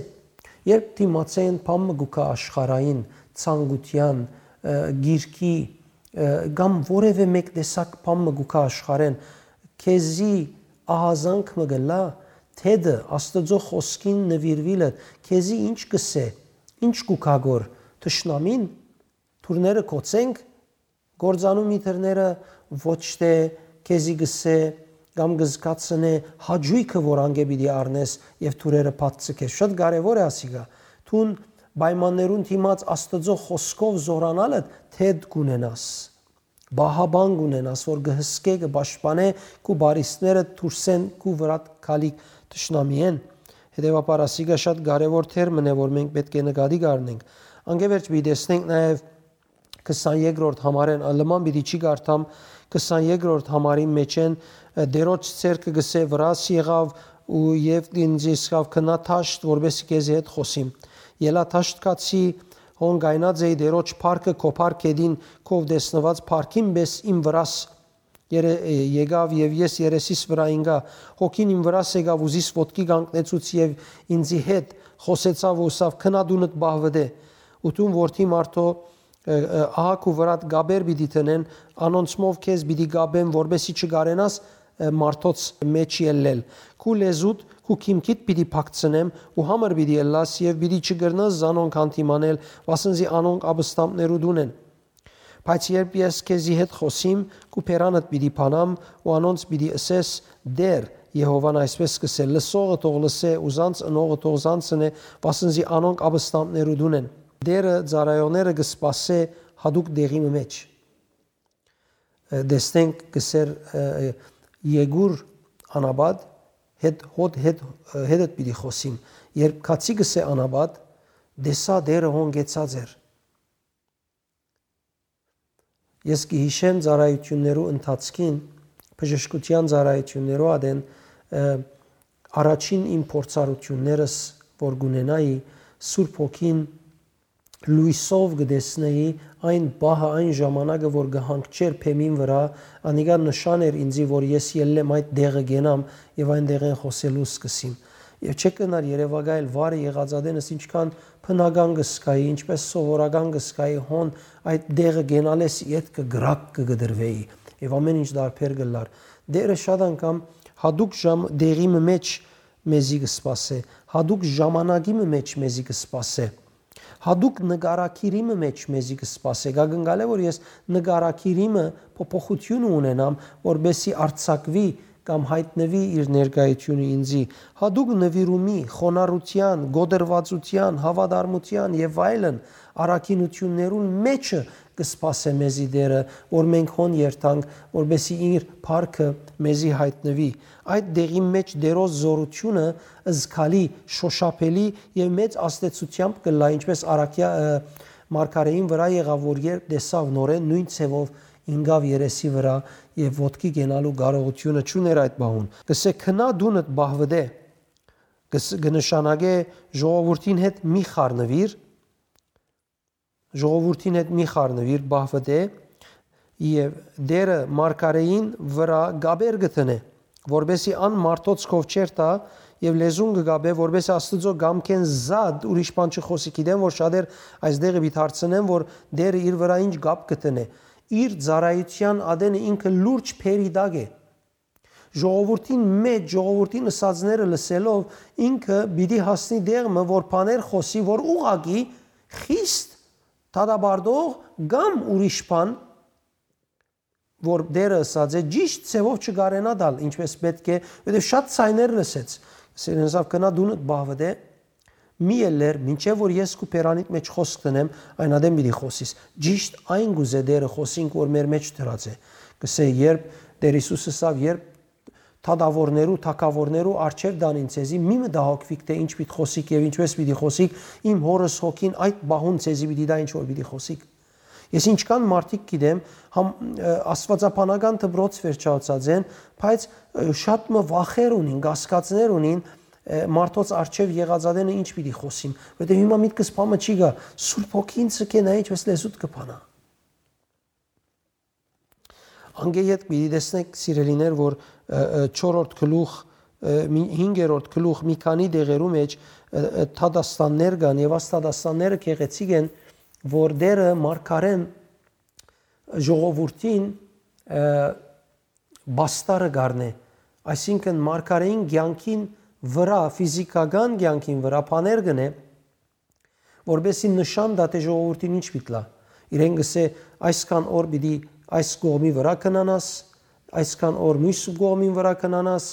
Երբ դիմացէն բան մը կու գայ աշխարհային, ցանկութեան, ը, գիրքի, ը, կամ որեւէ մէկ տեսակ բան մը կու գայ աշխարհէն, քեզի ահազանգ մը կ'ըլլայ, թեթը Աստուծոյ խօսքին նուիրուիլը, քեզի ինչ կ'ըսէ, ինչ կու գայ գոր, թշնամին, դուռները կ'ոցե՞նք, կ'ործանո՞մ ի դուռները, ոչ թէ քեզի կ'ըսէ կամ կը զգացնէ հաճոյքը, որ անկէ պիտի առնես եւ դուռերը բաց ձգես։ Շատ կարեւոր է ասիկա։ Դուն պայմաններուն դիմաց Աստուծոյ խօսքով զօրանալը թեթ կ'ունենաս, պահապան կ'ունենաս, որ կը հսկէ, կը պաշտպանէ քու բարիսպները դուրսէն քու վրադ գալիք թշնամիէն։ Հետեւաբար ասիկա շատ կարեւոր թեր մըն է, որ մենք պէտք է նկատի կ'առնենք։ Անկէ վերջ պիտի տեսնենք նաեւ քսանեքերորդ համարէն, ա, լման պիտի չի կարդամ, քսանեքերորդ համարին մէջէն, ը, Տէրոջ ձեռքը կ'ըսէ, վրաս եղաւ ու, եւ ինձ ըսաւ, գնա դաշտ, որպէսզի քեզի հետ խօսիմ։ Ելայ դաշտ գացի, հոն կայնած էի, Տէրոջ փառքը քո փառ գետին, քով տեսնուած փառքին պէս իմ վրաս երե-, ը, եկաւ եւ ես երեսիս վրայ ինկայ, հոգին իմ վրաս եկաւ ու զիս ոտքի կանգնեցուց եւ ինձի հետ խօսեցաւ ու ըսաւ, գնա տունդ պահուտէ։ Ու դուն որդի մարդոյ, ը, ը, ահա քու վրադ կապեր պիտի դնեն, անոնցմով քեզ պիտի կապեն, որպէսզի չկարենաս, ը, մարդոց մէջ ելլել։ Քու լեզուդ, քու քիմքիդ պիտի փակցնեմ ու համր պիտի ըլլաս եւ պիտի չկրնաս զանոնք հանդիմանել, վասն զի անոնք ապստամբներու տուն են։ Բայց երբ ես քեզի հետ խօսիմ, քու բերանդ պիտի բանամ ու անոնց պիտի ըսես, Տէր, Եհովան այսպէս կ'ըսէ, լսողը թող լսէ ու զանց ընողը թող զանց ընէ, վասն զի անոնք ապստամբներու տուն են։ Տէրը ծառայողները կը սպասէ յատուկ տեղի մը մէջ։ Ը, տեսնենք, կ'ըսէր, ը, Եկուր անապատ, հետ, հոդ, հետ, հետդ պիտի խօսիմ։ Երբ քացի կսէ անապատ, տեսայ Տէրը հոն կեցած էր։ Ես կը յիշեմ ծառայութիւններու ընթացքին, բժշկութեան ծառայութիւններու ատեն, ը, առաջին իմ փորձառութիւններս որ կ'ունենայի, Սուրբ Հոգին լոյսով կը տեսնէի այն պահը, այն ժամանակը, որ կը հանգչէր բեմին վրայ, անիկա նշան էր ինծի, որ ես ելլեմ այդ տեղը կենամ եւ այն տեղէն խօսելու սկսիմ։ Եւ չէ կնար երեւակայել վարը եղածատենս ինչքան բնական կը զգայի, ինչպէս սովորական կը զգայի, հոն այդ տեղը կենալէս ետքը գրակ կը կտրուէի եւ ամեն ինչ դարբեր կ'ըլլար։ Տէրը շատ անգամ յատուկ ժամ-, տեղի մը մէջ մեզի կը սպասէ, յատուկ ժամանակի մը մէջ մեզի կը սպասէ, յատուկ նկարագիրի մը մէջ մեզի կը սպասէ։ Կա կնկալէ, որ ես նկարագիրի մը փոփոխութիւնը ունենամ, որպեսզի արձակուի կամ յայտնուի իր ներկայութիւնը ինծի, յատուկ նուիրումի, խոնարհութեան, կոտրուածութեան, հաւատարմութեան եւ այլն առաքինութիւններուն մէջը կը սպասէ մեզի Տէրը, որ մենք հոն երթանք, որպեսզի իր փառքը մեզի յայտնուի։ Այդ դեղին մէջ Տէրոյ զօրութիւնը զգալի, շոշափելի եւ մեծ ազդեցութեամբ կ'ըլլայ, ինչպէս առաքեա-, ը, մարգարէին վրայ եղաւ, որ երբ տեսաւ նորէն նոյն ձեւով ինկաւ երեսի վրայ եւ ոտքի կենալու կարողութիւնը չունէր այդ պահուն։ Կսէ, «Քնա դունդ պահուտէ», կս-, կը նշանակէ ժողովուրդին հետ մի խառնուիր, ժողովուրդին հետ մի խառնուիր, պահուտէ, եւ Տէրը մարգարէին վրայ կապեր կը դնէ, որպեսզի ան մարդոց քով չերթայ եւ լեզուն կը կապէ, որպեսզի Աստուծոյ կամքէն զատ ուրիշ բան չխօսի։ Գիտեմ, որ շատեր այս դեղը պիտի հարցնեն, որ Տէրը իր վրայ ինչ կապ կը դնէ։ Իր ծառայութեան ատենը ինքը լուրջ բերի տակ է։ Ժողովուրդին մէջ, ժողովուրդին ըսածները լսելով, ինքը պիտի հասնի տեղ մը, որ բաներ խօսի, որ ուղղակի խիստ դատապարտող կամ ուրիշ բան, որ Տէրը ըսած է, ճիշտ ձևով չկարենայ տալ, ինչպես պէտք է, որովհետեւ շատ ձայներ լսեց։ Սիրեն, զաւ, «Քնա դունդ պահուտէ», մի ելլեր, մինչեւ որ ես քու բերանիդ մէջ խօսք դնեմ, այն ատեն պիտի խօսիս։ Ճիշտ այն կ'ուզէ Տէրը խօսինք, որ մեր մէջ դրած է։ Կսէ, երբ Տէր Յիսուս ըսաւ, երբ դատաւորներու, թագաւորներու առջեւ տանին ձեզի, մի մտահոգուիք, թէ ինչ պիտի խօսիք եւ ինչպես պիտի խօսիք, իմ Հօրս Հոգին այդ պահուն ձեզի պիտի տայ ինչ որ պիտի խօսիք։ Ես ինչքան մարդիկ գիտեմ, համ, ը, աստուածաբանական դպրոց վերջացած են, բայց, ը, շատ մը վախեր ունին, կասկածներ ունին, ը, մարդոց առջեւ եղածատենը ինչ պիտի խօսիմ, որովհետեւ հիմա միտքս բանը չի գայ, Սուրբ Հոգին ինձ կենայ, ինչպես լեզուդ կը բանայ։ Անգէ ետք պիտի տեսնենք, սիրելիներ, որ, ը, ը, չորրորդ գլուխ, ը, մի, հինգերորդ գլուխ, մի քանի դեղերու մէջ, ը, ը, դատաստաններ կան եւ այս դատաստանները գեղեցիկ են, որ Տէրը մարգարէն ժողովուրդին, ը, պաստարը կ'առնէ, այսինքն մարգարէին կեանքին վրայ, ֆիզիքական կեանքին վրայ բաներ կ'ընէ, որպեսզի նշան տայ, թէ ժողովուրդին ինչ պիտի լայ։ Իրեն կ'ըսէ, այսքան օր պիտի այս կողմի վրայ քնանաս, այսքան օր մյուս կողմին վրայ քնանաս,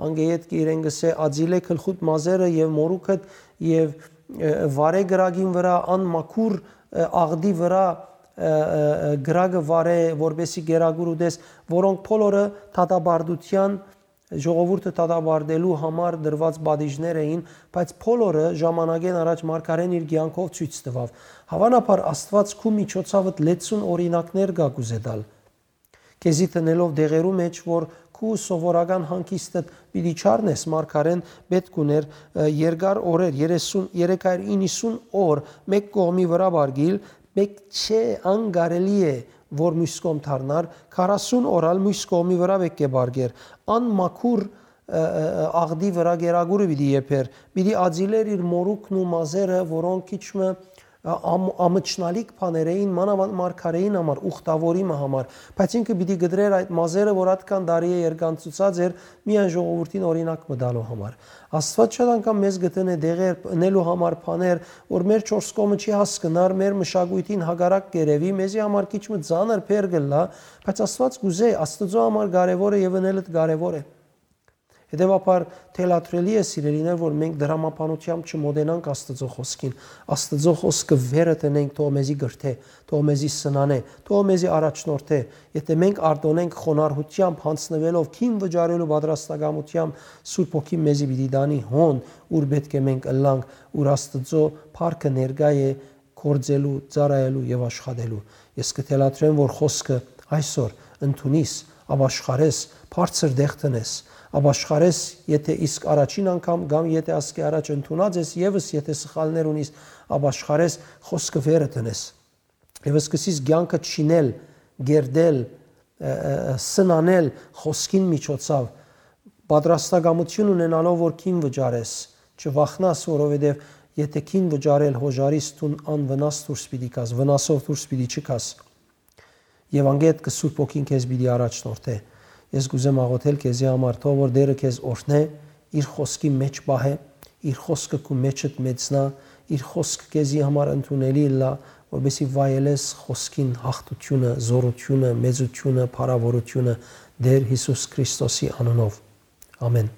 անգէ ետք իրեն կ'ըսէ, ածիլէ գլխուդ մազերը եւ մորուքդ եւ, ը, վարէ կրակին վրայ, անմաքուր, ը, աղտի վրայ, ը, ը, ը, կրակը վարէ, որպեսզի կերակուր ուտես, որոնք բոլորը դատապարտության, ժողովուրդը դատապարտելու համար դրված պատիժներ էին, բայց բոլորը ժամանակէն առաջ մարգարէն իր կեանքով ցոյց տուաւ։ Հաւանաբար Աստուած քու միջոցաւդ լեցուն օրինակներ կը կ'ուզէ տալ, քեզի դնելով դեղերու մէջ, որ քու սովորական հանգիստդ պիտի չառնես, մարգարէն պէտք ուներ, ը, երկար օրեր, երեսուն, երեք հարիւր իննսուն օր մէկ կողմի վրայ պառկիլ, մէկ չէ, անկարելի է, որ մյուս կողմ դառնար, քառասուն օր ալ մյուս կողմի վրայ պէտք է պառկեր։ Անմաքուր, ը, ը, ը, աղտի վրայ կերակուրը պիտի եփեր, պիտի ածիլեր իր մորուքն ու մազերը, որոնք քիչ մը, ը, ամ-, ամչնալիք բաներ էին, մանաւանդ մարգարէին համար, ուխտավորի մը համար, բայց ինքը պիտի կտրեր այդ մազերը, որ ատկան տարի է երկանցուցած էր, միայն ժողովուրդին օրինակ մը տալու համար։ Աստուած շատ անգամ մեզ կը դնէ դեղեր, ընելու համար բաներ, որ մեր չորս կողմը չի հասկնար, մեր մշակոյթին հակառակ կ'երեւի, մեզի համար քիչ մը ծանր բեռ կ'ըլլայ, բայց Աստուած կ'ուզէ, Աստուծոյ համար կարեւոր է եւ ընելդ կարեւոր է։ Հետեւաբար, թելադրելի է, սիրելիներ, որ մենք դրամաբանությամբ չմոտենանք Աստուծոյ խօսքին։ Աստուծոյ խօսքը վերը տնենք, թող մեզի կրթէ, թող մեզի սնանէ, թող մեզի առաջնորդէ։ Եթէ մենք արտօնենք խոնարհությամբ, յանձնուելով, քին վճարելու պատրաստակամությամբ, Սուրբ Հոգին մեզի պիտի տանի հոն, ուր պէտք է մենք ըլլանք, ուր Աստուծոյ փառքը ներկայ է, գործելու, ծառայելու եւ աշխատելու։ Ես կը թելադրեմ, որ խօսքը այսօր ընդունիս, ապաշխարես, բարձր տեղ տնես, ապաշխարես, եթէ իսկ առաջին անգամ կամ եթէ ասկէ առաջ ընդունած ես, եւս եթէ սխալներ ունիս, ապաշխարես, խօսքը վերը տնես։ Եվ սկսես կեանքը չինել, գերդել, ը, ը, ը, սնանել խօսքին միջոցով, պատրաստակամություն ունենալով, որ քին վճարես, չվախնաս, որովհետեւ եթէ քին վճարել հոժարիս, դուն անվնաս դուրս պիտի գաս, վնասով դուրս պիտի չգաս։ Եւ անգետ կը Սուրբ Հոգին քեզ պիտի առաջնորդէ։ Ես կ'ուզեմ աղոթել քեզի համար, թող որ Տէրը քեզ օրհնէ, իր խօսքի մէջ պահէ, իր խօսքը քու մէջդ մեծնայ, իր խօսքը քեզի համար ընդունելի ըլլայ, որպեսզի վայելես խօսքին յաղթութիւնը, զօրութիւնը, մեծութիւնը, փառաւորութիւնը Տէր Յիսուս Քրիստոսի անունով։ Ամէն։